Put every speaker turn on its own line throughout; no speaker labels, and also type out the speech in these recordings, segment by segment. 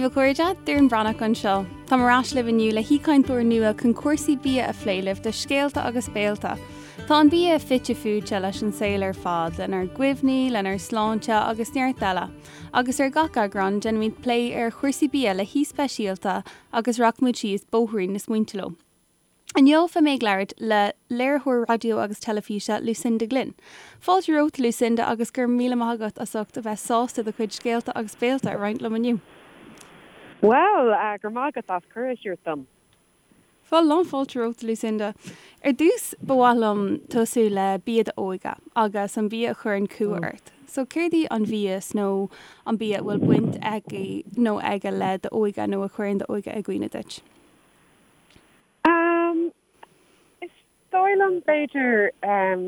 daoibh a chairde, Doireann Breathnach anseo. Táim ar ais libh inniu le haoichainteoir nua chun cúrsaí bia a phlé libh do Scéalta agus Béalta. Tá an bia fite fuaite leis an saol ar fad, lenár gcuimhní, lenár sláinte agus neart eile. Agus ar gach eagrán, déanaimid plé ar chúrsaí bia le haoi speisialta agus rachaimid síos bóithrín na smaointe leo. Inniu beidh mé ag labhairt le léiritheoir raidió agus teilifíse Lucinda Glynn. Fáilte romhat Lucinda agus go raibh míle maith agat as ucht a bheith sásta do chuid scéalta agus béalta a roinnt liom inniu.
Bhuel, go raibh maith agat as cuireadh a thabhairt dom.
Bhuel, lán fáilte romhat Lucinda. Ar dtús ba mhaith liom tosú le bia d'óige agus an bia a chuireann cumha ort. So céard í an mhias nó an bia a bhfuil baint aici nó aige le d'óige nó a chuireann d'óige i gcuimhne duit?
Um, is dóigh liom b'fhéidir, um,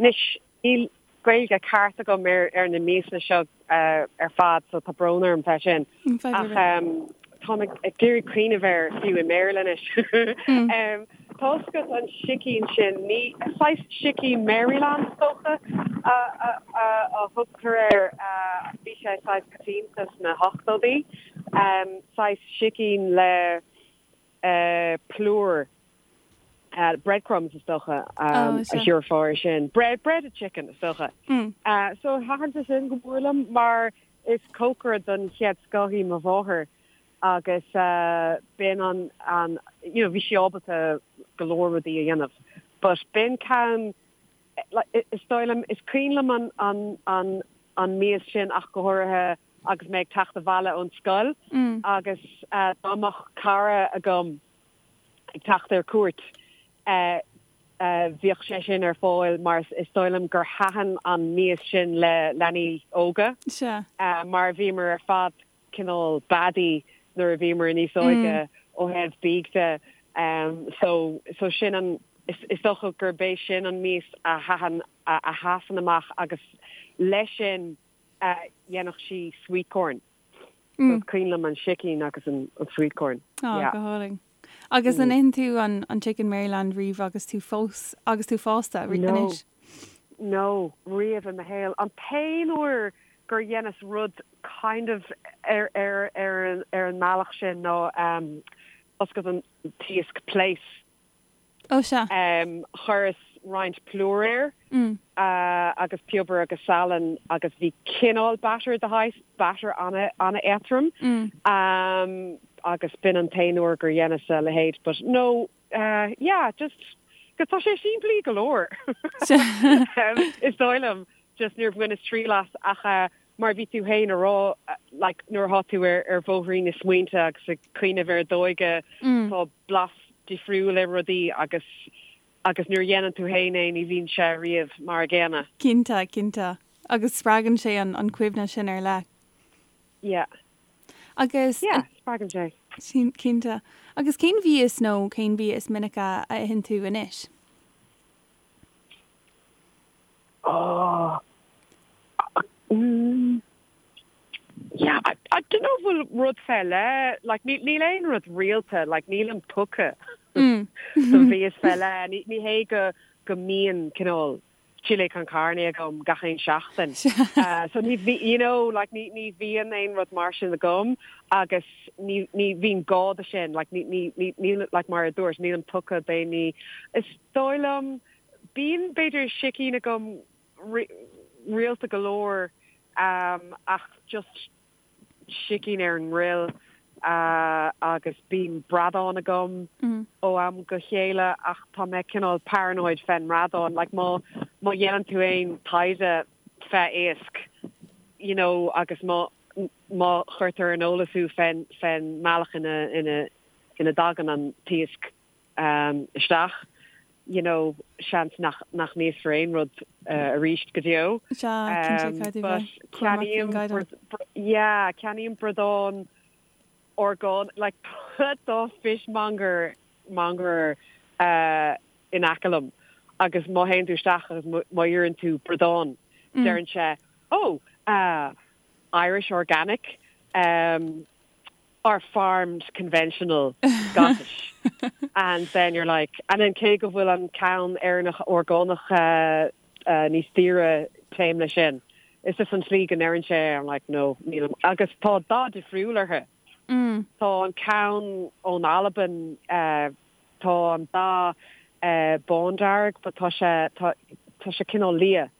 anois níl Gaeilge ceart agam ar ar na miasanna seo uh, ar fad so tá brón orm fé sin. Ach um, táim ag ag iarraidh cuimhneamh air fiú i mBéarla anois. Mm. um, tá fhios agat an sicín sin, ní saghas sicín Maryland is dócha a, a, a, a thugtar air, uh, bhí sé saghas coitianta sna hochtóidí, um, saghas sicín le plúr, breadcrumbs is dócha a thabharfá air sin. Bread, breaded chicken is dócha. So thaitin sé sin go mór liom mar is cócaire den chéad scoth í mo mháthair agus b'in an, an, you know, bhí sí ábalta go leor rudaí a dhéanamh. But b'in ceann, is dóigh liom, is cuimhin liom an, an, an, an mias sin ach go háirithe agus mé ag teacht abhaile ón scoil agus dá mbeadh cara agam ag teacht ar cuairt bhíodh sé sin ar fáil mar is dóigh liom gur thaitin an mias sin le leanaí óga mar bhíomar ar fad cineál beadaí nuair a bhíomar níos óige ó thaobh bídh de so so sin an is dócha gurb é sin an mias a thaitin a sheasann amach agus leis sin dhéanfadh sí sweet corn. So is cuimhin liom an sicín agus an sweet corn.
Á, Yeah. go hálainn. Agus an itheann tú an an chicken Maryland riamh agus tú fós, agus tú fásta
No. anois? No, riamh i mo shaol. An t-aon uair gur dheineas rud kind of ar ar ar an ar an mbealach sin ná um, tá fhios agat an t-iasc plaice.
Ó sea.
Chuireas roinnt plúir air agus piobar agus salann agus bhí cineál batter de shaghas, batter an-éadrom agus b'in an t-aon uair gur dheineas a leithéid but no, yeah, just go tá sé simplí go leor is dóigh liom, just níor bhaineas triail as ach mar a bhí tú féin a rá like nuair atá tú ar ar bhóithrín na smaointe agus ag cuimhneamh ar d'óige tá blas difriúil ar rudaí agus agus nuair a dhéanann tú féin é ní bhíonn sé riamh mar a gcéanna.
Cinnte, cinnte. Agus spreagann sé an an cuimhne sin ar leith.
Yeah.
Agus.
Yeah, spreagann sé.
Cinnte. Agus cén mhias nó cén bia is minice a itheann tú anois?
Oh. Mm. Yeah, I, I don't know bhfuil rud fé leith, like, ní, níl aon rud rialta, like, nílim tugtha mm. do mhias fé leith. Ní, ní hé go, go mbíonn cineál chile con carne agam gach aon seachtain. uh, so ní, you know, like, ní, ní bhíonn aon rud mar sin agam agus ní, ní bhíonn gá do sin, like, ní, ní, ní, ní, like, mar a dúirt, nílim tugtha d'aon ní. Is dóigh liom, bíonn b'fhéidir sicín agam rialta go leor ach just sicín ar an ngril agus bíonn bradán agam ó am go chéile ach tá mé cineál paranoid fén mbradán like má má dhéanann tú aon taighde fé iasc you know agus má má chuirtear ar an eolas thú fén fén mbealach ina ina ina dtagann an t-iasc isteach, you know, seans nach nach n-íosfar aon rud arís go deo.
Sea, cinnte, caithfidh tú bheith cúramach faoin gcaighdeán.
Yeah, ceannaím bradán orgánach, like tá fishmonger, monger in aice liom agus má théann tú isteach agus má iarrann tú bradán, deireann sé, oh, Irish organic, or farmed conventional Scottish and then you're like and then cé go bhfuil an ceann Éireannach orgánach níos daoire téim leis sin. It's just an tslí go ndeireann sé I'm like no nílim agus tá dath difriúil orthu. Tá an ceann ón Albain, tá an dath bándearg but tá sé, tá, tá sé cineál liath.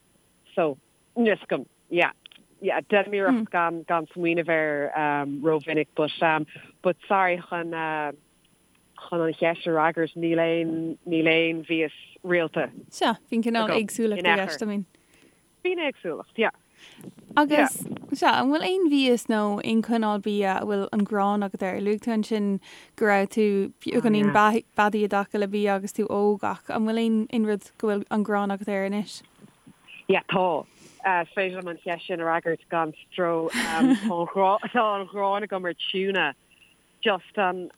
So, níl 'fhios agam, yeah, yeah, déanaim iarracht gan, gan smaoineamh air rómhinic but, but sorry chun, chun an cheist a fhreagairt, níl aon, níl aon mhias rialta.
Sea, bíonn cineál éagsúlacht i gceist, I mean.
Bíonn éagsúlacht, yeah.
Agus, sea, an bhfuil aon mhias nó aon chineál bia a bhfuil an ghráin agat air? Luaigh tú ansin go raibh tú beagáinín beadaí i dtaca le bia agus tú óg ach an bhfuil aon, aon rud go bhfuil an ghráin agat air anois?
Yeah, tá. Is féidir liom an cheist sin a fhreagairt gan stró. Tá an ghrá, tá an ghráin agam ar tuna. Just an,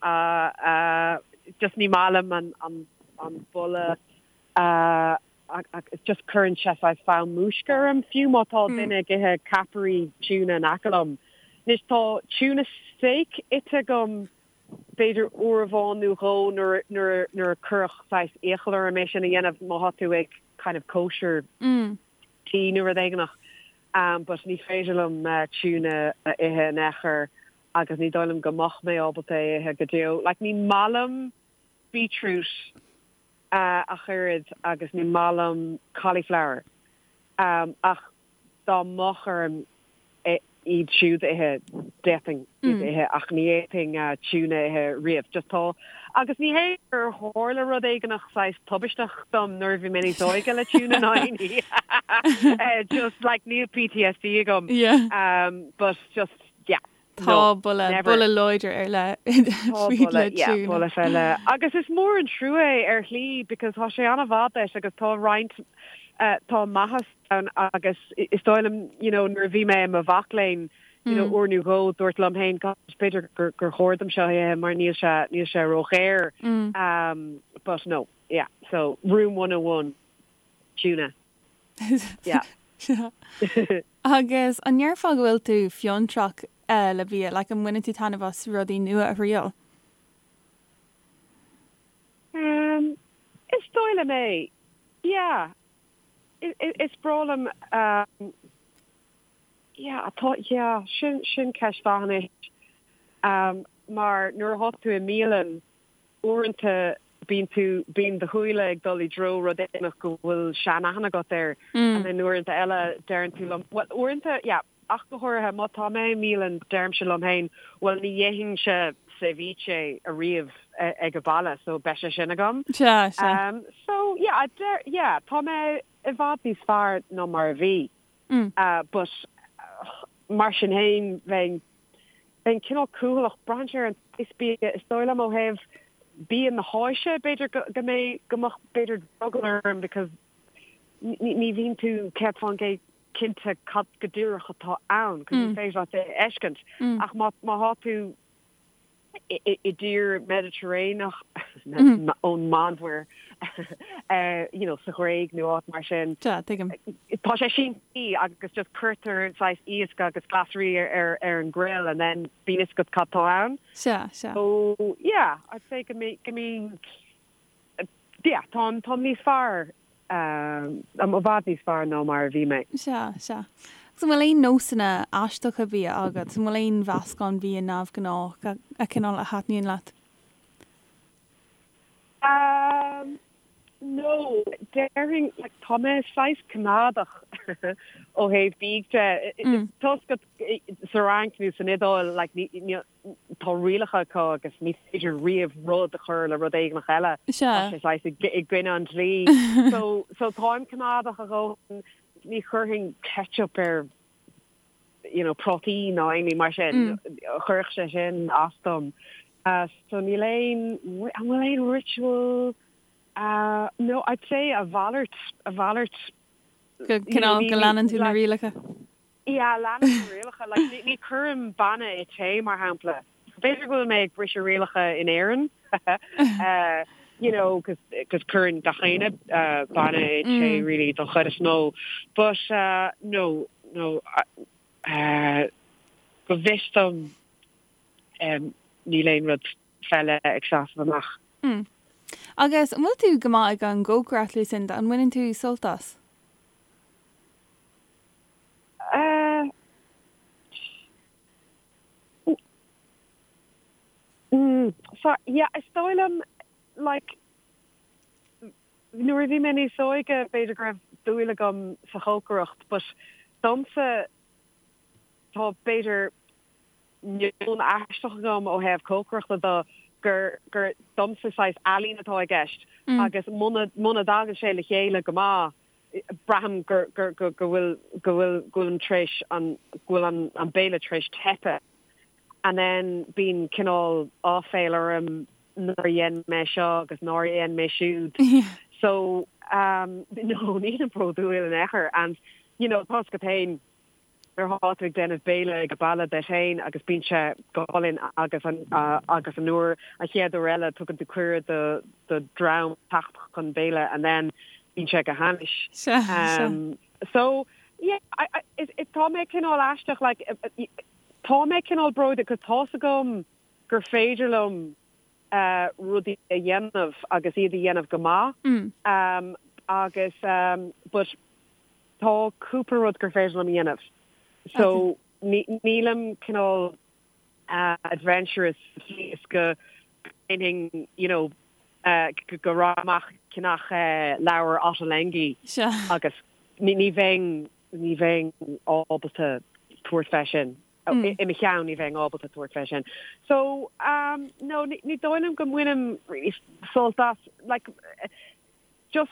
just ní maith liom an, an, an boladh. Agus just cuireann sé saghas fonn múisce orm, fiú má tá duine ag ithe ceapairí tuna in aice liom. Anois tá tuna steak ite agam b'fhéidir uair amháin nó dhó nuair nuair nuair a cuireadh saghas iachall orm é sin a dhéanamh má thá tú ag kind of kosher tí nó rud éigineach. But ní féidir liom tuna a ithe in aon chor agus ní dóigh liom go mbeadh mé ábalta é a ithe go deo. Like ní maith liom beetroot ach oiread agus ní maith liom cauliflower ach dá mbeadh orm iad siúd a ithe, d'fhéadfainn iad a ithe ach ní fhéadfainn tuna a ithe riamh. Just tá, agus ní hé gur tharla rud éigineach saghas tubaisteach dom nuair a bhí mé níos óige le tuna ná aon ní. Just like níl PTSD agam but just yeah.
Tá boladh, boladh láidir ar leith
faoi le tuna. Boladh fé leith. Agus is mór an trua é ar shlí because tá sé an-mhaith duit agus tá roinnt, tá maitheas ann agus is dóigh liom, you know, nuair a bhí mé i mo mhac léinn, you know, uair nó dhó dúrt liom féin, gosh, b'fhéidir gur gur chóir dom seo a ithe mar níl sé, níl sé ródhaor. But no, yeah, so room 101, tuna. Yeah.
Agus an ndéarfá go bhfuil tú fiontrach le bia, like an mbaineann tú taitneamh as rudaí nua a thriail?
Um, is dóigh liom é. Yeah. Is breá liom um, yeah, tá, yeah, sin, sin ceist mhaith anois. Um, mar nuair atá tú i mbialann, Uaireanta bíonn tú, bíonn do shúile ag dul i dtreo rud éigin go bhfuil seanaithne agat air and then uaireanta eile deireann tú liom, bhuel uaireanta, yeah, ach go háirithe má tá mé i mbialann deirimse liom féin, bhuel ní dhéanfainnse ceviche ariamh ag an baile so beidh sé sin agam.
Sea, sea.
So yeah, deir, yeah, tá mé i bhfad níos fearr ná mar a bhí. But mar sin féin bheinn, bheinn cineál cúthaileach, braitheann sé ar an saghas bia, is dóigh liom ó thaobh bia na hÁise b'fhéidir go, go mbeidh, go mbeadh b'fhéidir drogall orm because ní, ní bhíonn tú 100% cinnte cad go díreach atá ann, cos ní féidir leat é a fheiscint. Ach má, má thá tú i dtír Meiditréineach ón Meánmhuir, you know, sa Ghréig nó áit mar sin.
Sea, tuigim.
Tá sé simplí agus just cuirtear saghas iasc agus glasraí ar ar an grill and then bíonn fhios agat cad tá ann.
Sea, sea.
So, yeah, I'd say go mbíonn, yeah, táim, táim níos fearr, i bhfad níos fearr ná mar a bhí mé.
Sea, sea. Agus an bhfuil aon nósanna aisteacha bia agat? An bhfuil aon mheascán bia neamhghnách a, a cineál a thaitníonn leat?
Um, no, déarfainn, like, tá mé saghas coimeádach ó thaobh bídh de. Toisc go, sa Fhrainc nó san Iodáil, like, ní, ní, tá rialacha acu agus ní féidir riamh rud a chur le rud éigineach eile.
Tá
sé saghas i gcoinne an dlí. So, so táim coimeádach a dhóthain, ní chuirfinn ketchup ar you know, prátaí ná aon ní mar sin. Chuirfeadh sé sin as dom. So níl aon, an bhfuil aon ritual? No, I'd say a mhalairt, a mhalairt.
Go cineál go leanann tú na rialacha.
Yeah, leanaim na rialacha. Like, ní chuirim bainne i tae, mar shampla. B'fhéidir go bhfuil mé ag briseadh rialacha in Éirinn, you know, cos cuireann gach éinne bainne i tae, really, don chuid is mó. But, no, no, go bhfios dom, níl aon rud fé leith ag seasamh amach.
Agus an bhfuil tú go maith ag an gcócaireacht, Lucinda? An mbaineann tú sult as?
So, yeah, is dóigh liom, like, nuair a bhí mé níos óige, b'fhéidir go raibh dúil agam sa chócaireacht, but domsa, tá, b'fhéidir, meon aisteach agam ó thaobh cócaireachta de, gur, gur, domsa saghas ealaín atá i gceist agus muna, muna dtagann sé le chéile go maith, braithim gur, gur, go, go bhfuil, go bhfuil, go bhfuilim tar éis an, go bhfuil an, an béile tar éis teipeadh. And then bíonn cineál áiféil orm nár dhein mé seo agus nár dhein mé siúd. So um no nílim bródúil in aon chor and you know tá's agat féin nuair atá tú ag déanamh béile ag baile duit féin agus bíonn sé go hálainn agus an agus an uair an chéad uair eile tugann tú cuireadh do do dhream teacht chun béile and then bíonn sé go hainnis. Um so yeah I I is tá mé cineál aisteach like Tá mé cineál bródúil 'cause tá's agam gur féidir liom rudaí a dhéanamh agus iad a dhéanamh go maith agus but tá cúpla rud gur féidir liom a dhéanamh so nílim cineál adventurous sa tslí is go ndéanfainn you know go rachainn amach ag ceannach leabhar Ottolenghi agus ní bheinn ní bheinn ábalta tabhairt fé sin. I mo cheann, ní bheinn ábalta tabhairt fé sin. So, um, no, ní dóigh liom go mbainim really sult as, like, just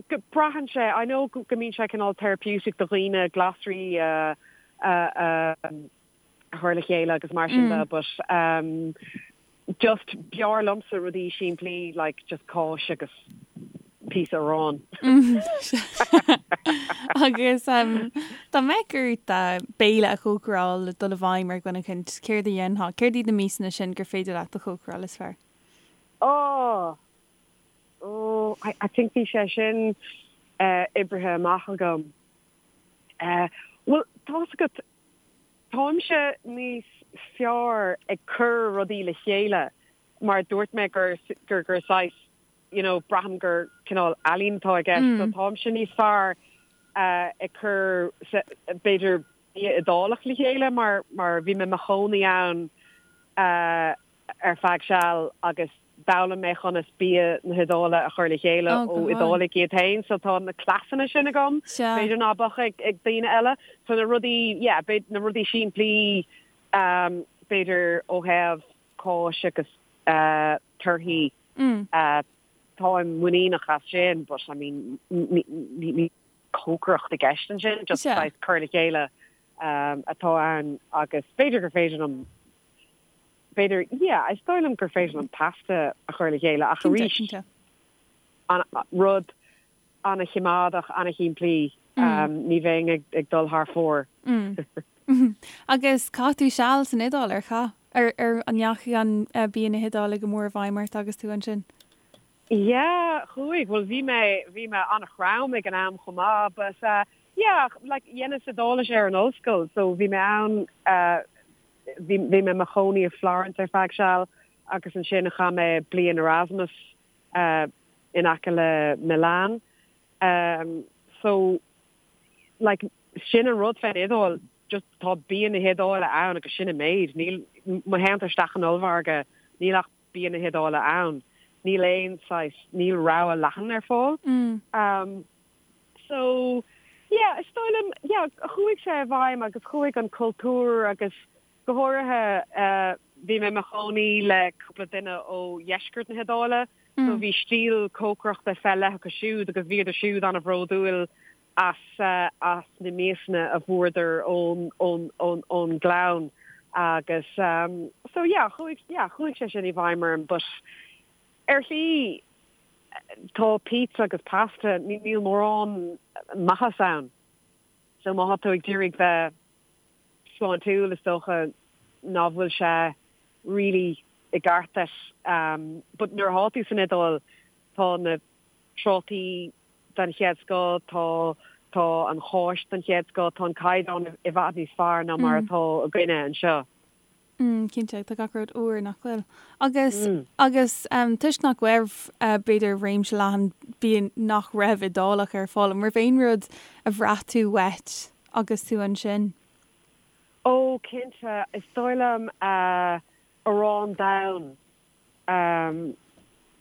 go braitheann sé, I know go mbíonn sé cineál therapeutic do dhaoine glasraí a, a, a, a chur le chéile agus mar sin de, but, um, Just b'fhearr liomsa rudaí simplí like just cáis agus píosa aráin.
Agus dá mbeadh ort béile a chócaráil le dul i bhfeidhm ar dhuine éicint, céard a dhéanfá? Céard iad na miasanna sin gur féidir leat a chócaráil is fearr?
Oh! Oh, I, I think bhí sé sin oibrithe amach agam. Bhuel, tá's agat, Táimse níos fearr ag cur rudaí le chéile mar dúirt mé gur gur gur saghas you know braithim gur cineál ealaín atá i gceist so táimse níos fearr ag cur b'fhéidir bia Iodálach le chéile mar mar bhí mé i mo chónaí ann ar feadh seal agus d'fhoghlaim mé conas bia na hIodáile a chur le chéile ó Iodálaigh iad féin so tá na cleasanna sin agam, b'fhéidir ná beadh ag daoine eile. So na rudaí, yeah, na rudaí simplí b'fhéidir ó thaobh cáis agus torthaí, táim muiníneach as sin but I mean níl cócaireacht i gceist ansin, just saghas cur le chéile atá ann agus b'fhéidir gur féidir liom B'fhéidir, yeah, is dóigh liom gur féidir liom pasta a chur le chéile ach arís, an rud an-choimeádach, an-shimplí, ní bheinn ag dul thar fóir.
Agus chaith tú seal san Iodáil, ar chaith? Ar, ar, an ndeachaigh an bia na hIodáile go mór i bhfeidhm ort agus tú ansin?
Yeah, chuaigh. Bhuel, bhí mé, bhí mé an-throm ag an am chomh maith, but yeah, like, dheineas Iodáilis ar an ollscoil, so bhí mé ann, Bhí mé i mo chónaí i Florence ar feadh seal agus ansin chaith mé bliain Erasmus in aice le Milan. So, like, sin an rud fén Iodáil, just tá bia na hIodáile ann agus sin an méid. Níl, má théann tú isteach in ollmhargadh, níl ach bia na hIodáile ann. Níl aon saghas, níl rogha leathan ar fáil. So, yeah, is dóigh liom, yeah, chuaigh sé i bhfeidhm agus chuaigh an cultúr agus go háirithe eh, bhí mé i mo chónaí le cúpla duine ó dheisceart na hIodáile, so bhí stíl cócaireachta fé leith acu siúd agus bhíodar siúd an-bhródúil as eh, as na miasanna a fuaireadar ón, ón, ón, ón ngleann agus um, so yeah, chuaigh, yeah, chuaigh sé sin i bhfeidhm orm but ar shlí Tá pizza agus pasta, níl mórán maitheas ann. So má tá tú ag d'iarraidh bheith sláintiúil is dócha ná bhfuil sé really i gceart duit. But nuair atá tú san Iodáil tá na trátaí den chéad scoth, tá tá an cháis den chéad scoth, tá an caighdeán i bhfad níos fearr ná mar atá againne anseo.
Mm, cinnte, tá gach rud úr, nach bhfuil? Agus, agus toisc nach raibh, b'fhéidir, réimse leathan bia nach raibh Iodálach ar fáil, an raibh aon rud a bhraith tú uait agus tú ansin?
Ó, cinnte, is dóigh liom arán donn. Um,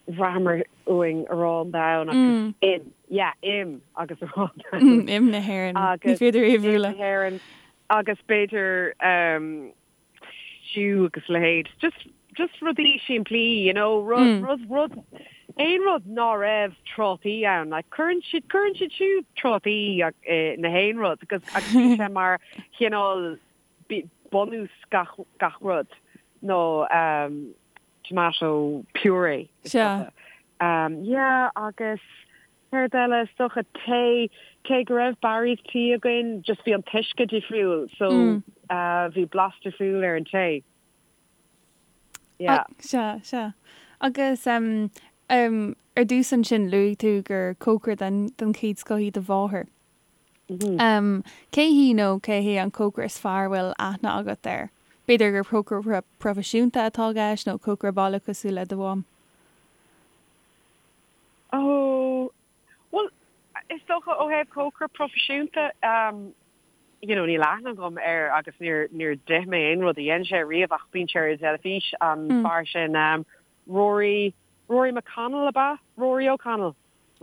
bhraitheamar uainn arán donn agus im, yeah, im agus arán
donn. Im na hÉireann. Ní féidir é a bhualadh.
Im na hÉireann agus b'fhéidir um, stew agus leithéid. Just, just rudaí simplí, you know, rud, rud, rud, aon rud ná raibh trátaí ann. Like, cuireann siad, cuireann siad siúd trátaí i na haon rud agus, agus bhí sé mar chineál bunús gach, gach rud nó um, tomato puree.
Sea.
Um, yeah, agus céard eile, is dócha tae, cé go raibh Barry's tea againn, just bhí an t-uisce difriúil, so mm. uh, bhí blas difriúil ar an tae.
Yeah. Sea, sea. Agus um, um, ar dtús ansin luaigh tú gur cócaire den, den chéad scoth í do mháthair. Cé hí nó cé hé an cócaire is fearr a bhfuil aithne agat air? B'fhéidir gur cócaire proifisiúnta atá i gceist nó cócaire baile cosúil le do mham?
Ó, bhuel, is dócha ó thaobh cócaire proifisiúnta, you know, níl aithne agam air agus níor, níor d'ith mé aon rud a dhein sé riamh ach bíonn sé ar an teilifís, an fear sin, Rory, Rory McConnell ab ea? Rory O'Connell.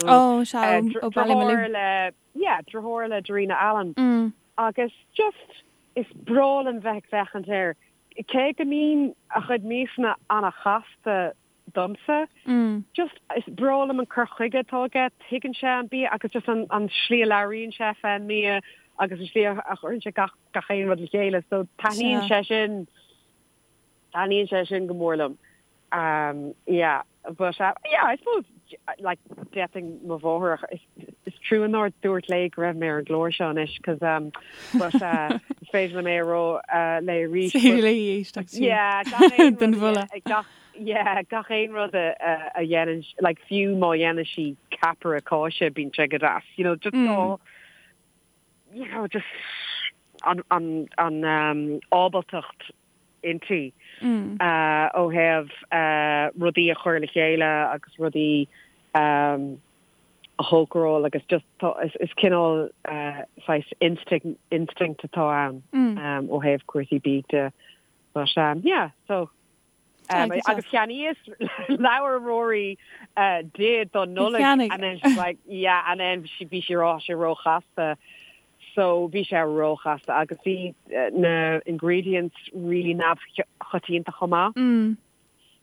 Ó, sea, ó
Ballymaloe. Deartháir le, yeah, deartháir le Darina Allen. Agus just, is breá liom bheith ag féachaint air. Cé go mbíonn a chuid miasanna an-chasta domsa, just, is breá liom an cur chuige atá aige, tuigeann sé an bia agus just an, an slí a labhraíonn sé fén mbia agus an slí a chuireann sé gach, gach aon rud le chéile. So taitníonn sé sin. Taitníonn sé sin go mór liom. Yeah, but yeah, I suppose like d'fhéadfainn mo mháthair a is trua nár dúirt léi go raibh mé ar an gclár seo anois cos um but uh is féidir liom é a rá uh léi arís.
Is féidir léi éisteacht
siar Yeah, gach aon don rud mholadh. gach yeah, gach aon rud a a a dhéanann like fiú má dhéanann sí ceapaire cáise bíonn sé go deas, you know, just tá you know, just an an an um ábaltacht inti ó thaobh rudaí a chur le chéile agus rudaí a chócaráil agus just tá is cineál saghas instinct instinct atá ann ó thaobh cúrsaí bídh de. But yeah, so Agus cheannaíos leabhar Rory di don Nollaig and then she's like yeah and then bhí sí rá sé róchasta so bhí sé róchasta agus bhí na ingredients really neamhchoitianta chomh maith.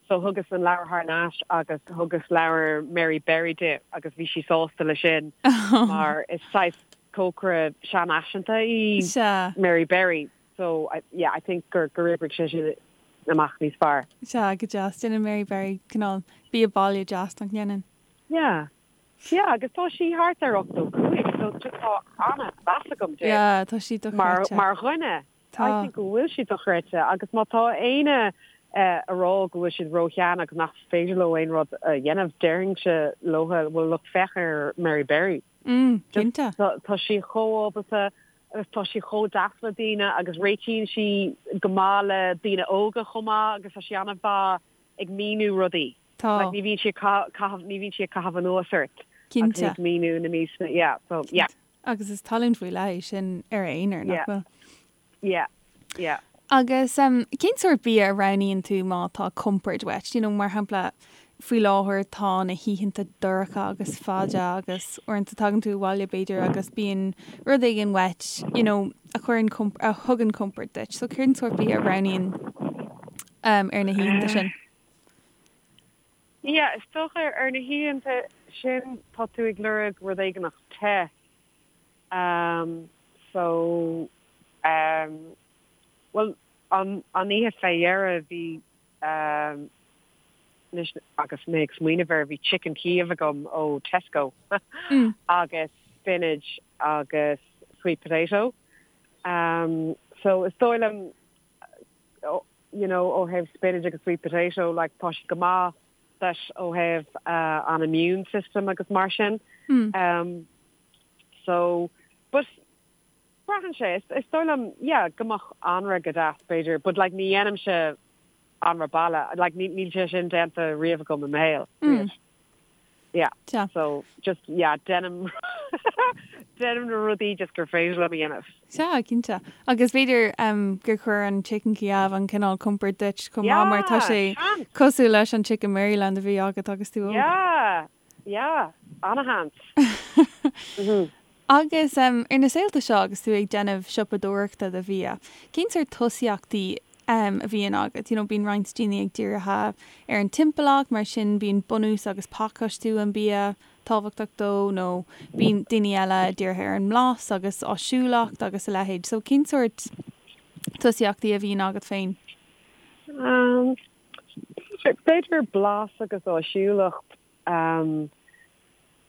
So thugas an leabhar thar n-ais agus thugas leabhar Mary Berry di agus bhí sí sásta le sin mar is saghas cócaire seanfhaiseanta í Mary Berry. So, yeah, I think gur gur oibrigh sé sin amach níos fearr.
Sea, go deas. Déanann Mary Berry cineál bia baile deas, nach ndéanann?
Yeah. Yeah, agus tá sí thart ar 85, so just tá an-mheas agam
di. Yeah, tá sí
dochreidte. Mar mar dhuine.
Tá.
I think go bhfuil sí dochreidte agus má tá éinne a rá go bhfuil siad ró-shean agus nach féidir leo aon rud a dhéanamh, déarfainnse leo, well look, féach ar Mary Berry.
Mm, cinnte.
Tá sí chomh ábalta agus tá sí chomh deas le daoine agus réitíonn sí go maith le daoine óga chomh maith agus tá sí an-mhaith ag míniú rudaí.
Tá.
Like ní bhíonn sí ag caitheamh, ní bhíonn sí ag caitheamh anuas ort.
Cinnte.
Agus ag míniú na miasanna, yeah, so yeah.
Agus is tallann faoi leith é sin ar a aonar, nach bhfuil?
Yeah, yeah.
Agus cén sórt bia a roghnaíonn tú má tá compord uait? You know, mar shampla, faoi láthair tá na hoícheanta dorcha agus fada agus uaireanta tagann tú abhaile b'fhéidir agus bíonn rud éigin uait, you know, a chuireann, a thugann compord duit. So cén sórt bia a roghnaíonn um, ar na hoícheanta sin?
Yeah, is dócha ar na hoícheanta sin tá tú ag lorg rud éigineach te. Um, so, um, bhuel, an, an oíche fé dheireadh bhí, um, anois agus mé ag smaoineamh air, bhí chicken Kiev agam ó Tesco agus spinach agus sweet potato. Um, so is dóigh liom, you know, ó thaobh spinach agus sweet potato, like, tá siad go maith duit ó thaobh uh, an immune system agus mar sin. Um, So, but braitheann sé, is dóigh liom, yeah, go mbeadh anraith go deas, b'fhéidir, but like ní dhéanaimse anraith baile, like níl sé sin déanta riamh agam i mo shaol, riamh. Yeah.
Sea.
So, just, yeah, déanaim, Déanaim na rudaí just gur féidir liom a dhéanamh.
Sea, cinnte. Agus b'fhéidir gur chuir an Chicken Kiev an cineál compoird duit chomh maith mar tá sé cosúil leis an Chicken Maryland a bhí agat agus tú
óg. Yeah, yeah, ana-sheans.
Agus ar na saolta seo agus tú ag déanamh siopadóireachta do bhia, cén sórt tosaíochtaí a bhíonn agat? You know, bíonn roinnt daoine ag dírithe ar an timpeallacht, mar sin bíonn bunús agus pacáistiú an bia tábhachtach dó, nó bíonn daoine eile dírithe ar an mblas agus áisiúlacht agus a leithéid. So cén sórt tosaíochtaí a bhíonn agat féin?
B'fhéidir blas agus áisiúlacht.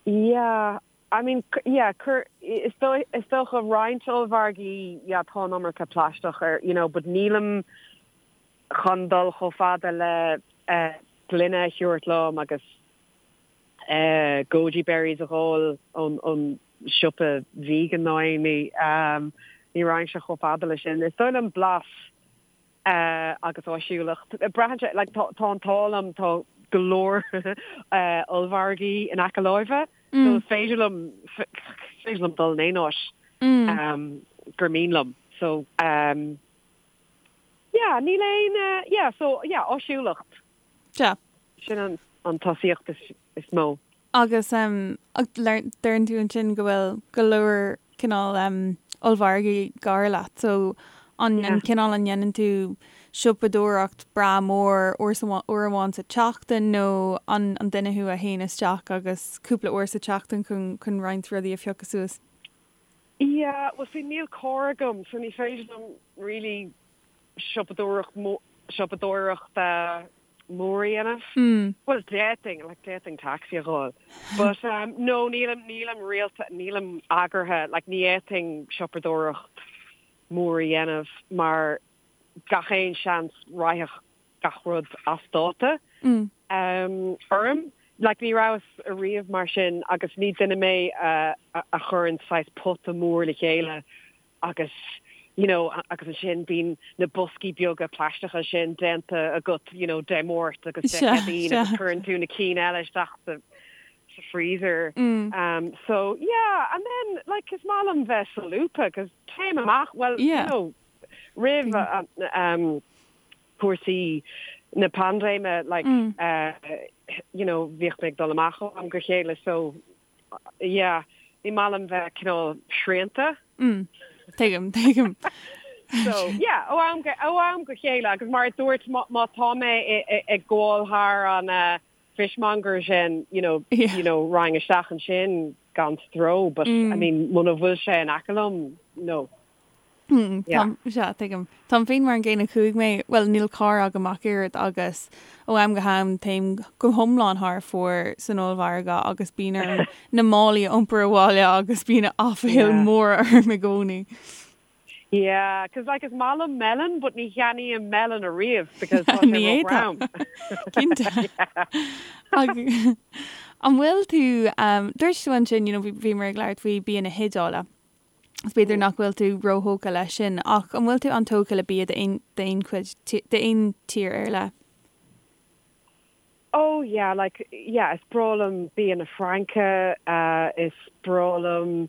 Yeah. I mean, yeah, cuir, is dóigh, is dócha roinnt ollmhargaí, yeah, tá an iomarca plaisteach ar, you know, but nílim chun dul chomh fada le eh, gloine a thabhairt liom agus eh, goji berries a dh'ól ón, ón siopa vegan nó aon ní, um, ní raghainnse chomh fada le sin. Is dóigh liom blas agus áisiúlacht. Braitheann sé, like, tá, tá an t-ádh liom, tá go leor ollmhargaí in aice láimhe, so is féidir liom, is féidir liom dul in aon áit gur mian liom. So, yeah, níl aon, yeah, so, yeah, áisiúlacht.
Sea.
Sin an, an tosaíocht is, is mó.
Agus deireann tú ansin go bhfuil go leor cineál ollmhargaí gar leat, so an cineál an ndéanann tú siopadóireacht breá mór uair amháin sa tseachtain nó an duine thú a théann isteach agus cúpla uair sa tseachtain chun roinnt rudaí a phiocadh suas?
Yeah, well see níl carr agam so ní féidir liom really siopadóireacht siopadóireacht mór a dhéanamh. Bhuel, d'fhéadfainn, like, d'fhéadfainn taxi a dh'fháil. But, um, no, nílim, nílim rialta, nílim eagraithe, like, ní fhéadfainn siopadóireacht mór a dhéanamh mar gach aon seans raghadh gach rud as dáta, um, orm. Like, ní rabhas ariamh mar sin agus ní duine mé a, a, a chuireann saghas pota mór le chéile agus you know agus ansin bíonn na boscaí beaga plaisteacha sin déanta agat you know Dé Máirt agus Dé Céadaoin agus cuireann tú na cinn eile isteach sa sa freezer. Um so yeah and then like is maith liom bheith solúbtha cos téim amach well you know roimh um cúrsaí na paindéime like uh you know bhíodh mé ag dul amach ó am go chéile so Yeah, ní maith liom bheith cineál srianta.
Mm, tuigim, tuigim.
So, yeah, ó am go, ó am go chéile agus mar a dúirt má, má tá mé ag gabháil thar an uh, fishmonger sin, you know, yeah. you know, raghainn isteach ansin gan stró, but mm. I mean, muna bhfuil sé in aice liom, no.
Sea, tuigim. Táim féin mar an gcéanna chuaigh mé, bhuel níl carr agam ach oiread agus ó am go ham téim go hiomlán thar fóir san ollmhargadh agus bíonn orm na málaí a iompar abhaile agus bíonn aiféal mór orm i gcónaí.
Yeah, 'cause like is maith liom melon but ní cheannaím melon ariamh because tá sé ró-throm.
Cinnte. An bhfuil tú, dúirt tú ansin, you know, bhíomar ag labhairt faoi bia na hIodáile. Is b'fhéidir nach bhfuil tú róthógtha leis sin, ach an bhfuil tú an-tógtha le bia d'aon chuid, d'aon tír ar leith?
Oh yeah, like, yeah, is breá liom bia na Fraince, is breá liom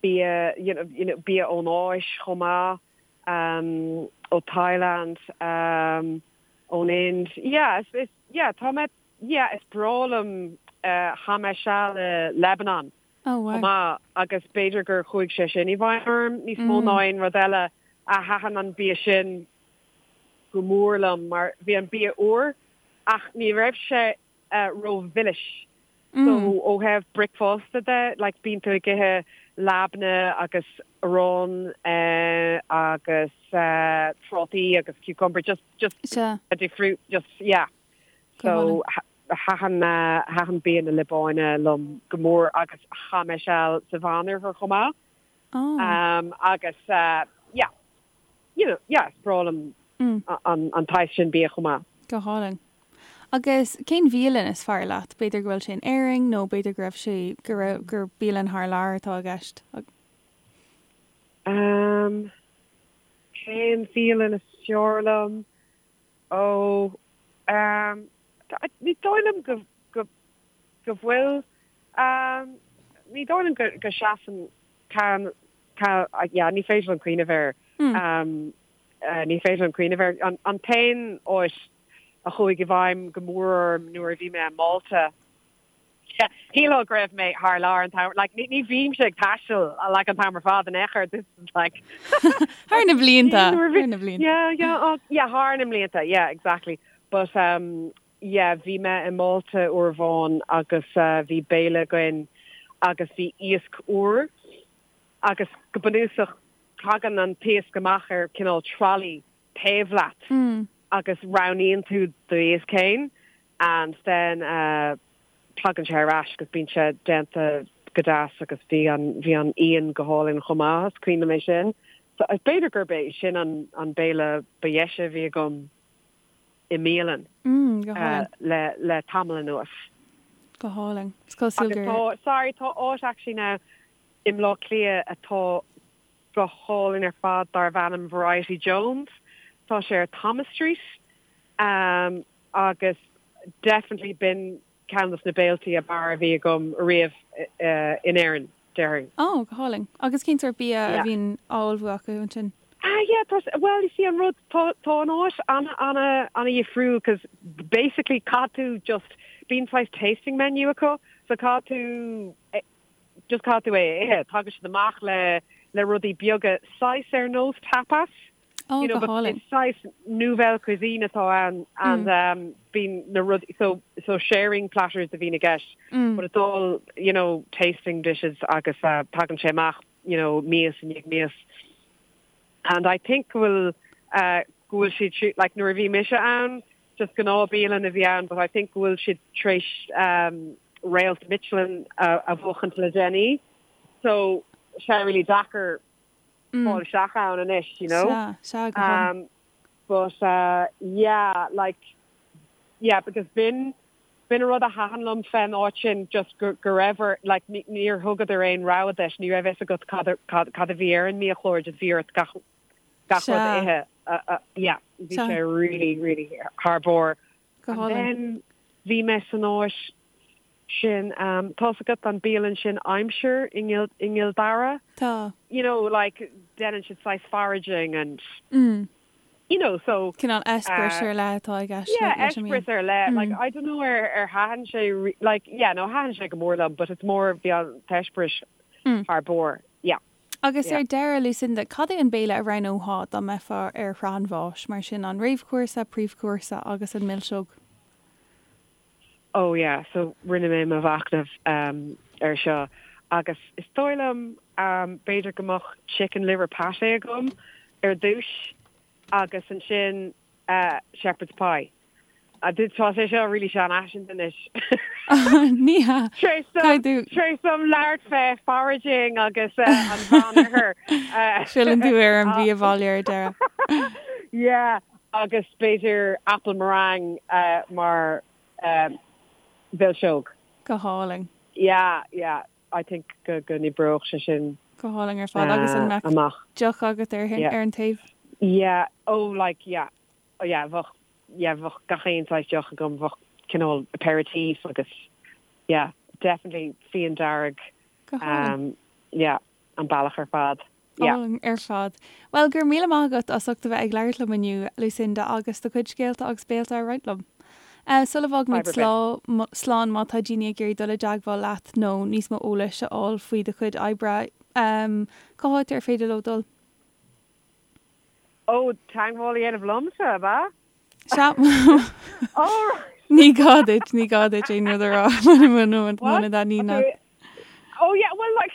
bia, you know, you know, bia ón Áis chomh maith, ó Thailand, ón Ind, yeah, is, is, yeah, tá mé, yeah, is breá liom, chaith mé seal i Lebanon chomh maith agus b'fhéidir gur chuaigh sé sin i bhfeidhm orm níos mó ná aon rud eile. A thaitin an bia sin go mór liom mar bhí an bia úr ach ní raibh sé rómhilis. So ó thaobh bricfeasta de, like bíonn tú ag ithe labne agus arán agus trátaí agus cucumber, just, just, fruit, just, yeah. So Thaitin thaitin bia na Liobáine liom go mór agus chaith mé seal sa Mheánoirthear chomh maith. Agus yeah, you know, yeah, is breá liom an tsaghas sin bia chomh maith.
Go hálainn. Agus cén bhialann is fearr leat? B'fhéidir go bhfuil sé in Éirinn nó b'fhéidir go raibh sé, go raibh, gur bialann thar lear atá i gceist.
Cén bhialann is fearr liom? Ó, ehm, ní dóigh liom go, go, go bhfuil, ehm, ní dóigh liom go, go seasann ceann, ceann, yeah, ní féidir liom cuimhneamh air. Um, ní féidir liom cuimhneamh air. An, an t-aon áit a chuaigh i bhfeidhm go mór orm nuair a bhí mé i Málta, Shílfeá go raibh mé thar lear an t-am, like, ní, ní bhímse ag taisteal, like, an t-am ar fad in aon chor, this is like
Thar na blianta, thar na blianta.
Yeah, yeah, oh, yeah, thar na mblianta, yeah, exactly. But, um, yeah, bhí mé i Málta uair amháin agus uh, bhí béile againn agus bhí iasc úr agus go bunúsach tagann an t-iasc amach ar cineál trolley taobh leat mm. agus roghnaíonn tú d'iasc féin and then uh, tagann sé ar ais agus bíonn sé déanta go deas agus bhí an bhí an fhíon go hálainn chomh maith, is cuimhin liom é sin. So b'fhéidir gurb é sin an an béile ba dheise a bhí agam i mbialann
mm, go hálainn.
Uh, le le tamall anuas.
Go hálainn. Is cosúil
gur tá sorry tá áit actually now i mBleá Cliath atá go hálainn ar fad darb ainm Variety Jones. Tá sé ar Thomas Street um, agus definitely b'in ceann dos na béiltí ab fhearr a bhí agam riamh in Éirinn, déarfainn.
Oh, go hálainn. Agus cén sórt bia a bhíonn á ullmhú acu ansin?
Ah yeah, tá, well you see an rud, tá, tá an áit ana, ana, ana dhifriúil cos basically caithfidh tú just, bíonn saghas tasting menu acu so caithfidh tú just caithfidh tú é a ithe. Tagann siad amach le, le rudaí beaga saghas ar nós tapas.
Oh, go hálainn.
Is saghas nouvelle cuisine atá ann and um, bíonn na rudaí, so, so sharing platters a bhíonn i gceist, mm. but it's all, you know, tasting dishes agus uh, tagann sé amach, you know, mias i ndiaidh mias. And I think go bhfuil, uh, go bhfuil siad, like nuair a bhí mise ann, just gnáthbhialann a bhí ann, but I think go bhfuil siad tar éis um, réalt Michelin a, a bhuachaint le déanaí. So, sé really deacair fáil isteach ann anois, you know.
Sea, sea, go hálainn.
Um, but uh, yeah, like, yeah, because b'in, b'in an rud a thaitin liom fén áit sin, just go, go raibh ar, like, ní, níor thugadar aon rogha duit, ní raibh fhios agat cad, cad, cad a bhí ar an mbiachlár, just bhí ort gach, gach rud a
Sea.
ithe. Uh, uh, yeah, bhí
Sea.
sé really, really thar barr.
Go
And
hálainn.
then bhí mé san áit sin, tá's agat an bialann sin Aimsir i gCill Dara?
Tá.
You know, like, déanann siad saghas foraging and, you know, so.
Cineál eispéireas ar leith atá i gceist
Yeah,
leis an mbia.
eispéireas ar leith. Like, I don't know ar ar thaitin sé, like, yeah, no, thaitin sé go mór liom, but it's more bhí an t-eispéireas thar barr, yeah.
Agus ar deireadh, Lucinda, cad é an béile a roghnófá dá mbeifeá ar shraith an bháis, mar sin an réamhchúrsa, príomhchúrsa agus an milseog?
Oh yeah, so rinne mé mo mhachnamh ar seo agus is dóigh liom b'fhéidir go mbeadh chicken liver pate agam ar dtús agus ansin shepherd's pie. Tá sé seo really seanfhaiseanta anois.
Ní hea.
Tar éis dom labhairt fé foraging agus an Mheánoirthear.
Filleann tú ar an bhia bhaile ar deireadh.
Yeah, Agus b'fhéidir apple meringue mar mhilseog.
Go hálainn.
Yeah, yeah, I think go go n-oibreodh sé sin
Go hálainn ar fad. Agus an mbeadh
amach.
deoch agat ar
Yeah.
ar an taobh?
Yeah, oh like yeah, oh yeah, bheadh, yeah, bheadh gach aon saghas deoch agam, bheadh cineál aperitif agus yeah, definitely fíon dearg,
Go hálainn.
yeah, an bealach ar fad. Yeah.
Álainn ar fad. Bhuel, go raibh míle maith agat as ucht a bheith ag labhairt liom inniu, Lucinda, agus do chuid scéalta agus béilte a roinnt liom. Sula bhfágaimid slán, má tá daoine ag iarraidh dul i dteagmháil leat nó níos mó eolais a fháil faoi do chuid oibre, cá háit ar féidir leo dul?
Ó, teagmháil a dhéanamh liomsa, ab ea?
Sea.
All right.
Ní gá duit, ní gá duit aon rud a rá muna dtaitníonn leat.
Oh yeah, well like,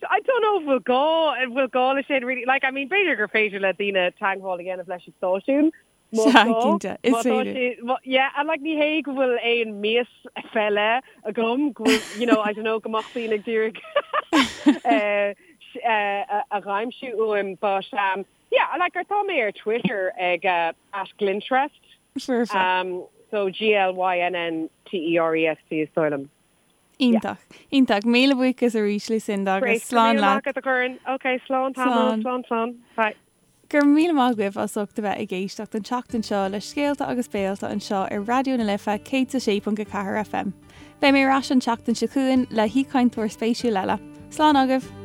I don't know if bhfuil gá, an bhfuil gá leis sin really. Like, I mean, b'fhéidir gur féidir le daoine teagmháil a dhéanamh leis an stáisiún.
Sea, cinnte, is féidir.
Yeah, and like ní hé go bhfuil aon mias fé leith agam, go bhfuil, you know, I don't know, go mbeadh daoine ag iarraidh a dh'aimsiú uaim, but um, Yeah, like tá mé ar Twitter ag at Glyntrest.
Foirfe.
Um, so G-L-Y-N-N-T-E-R-E-S-T is dóigh liom.
Iontach. Iontach. Míle buíochas arís, Lucinda, agus slán leat.
Great. Go raibh míle maith agat, a Dhoireann. Ok, slán tamall.
Slán.
Slán, slán. Bye.
Go raibh míle maith agaibh as ucht a bheith ag éisteacht an tseachtain seo le Scéalta agus Béalta anseo ar Raidió na Life 106.4 FM. Beidh mé ar ais an tseachtain seo chugainn le haoichainteoir spéisiúil eile. Slán agaibh!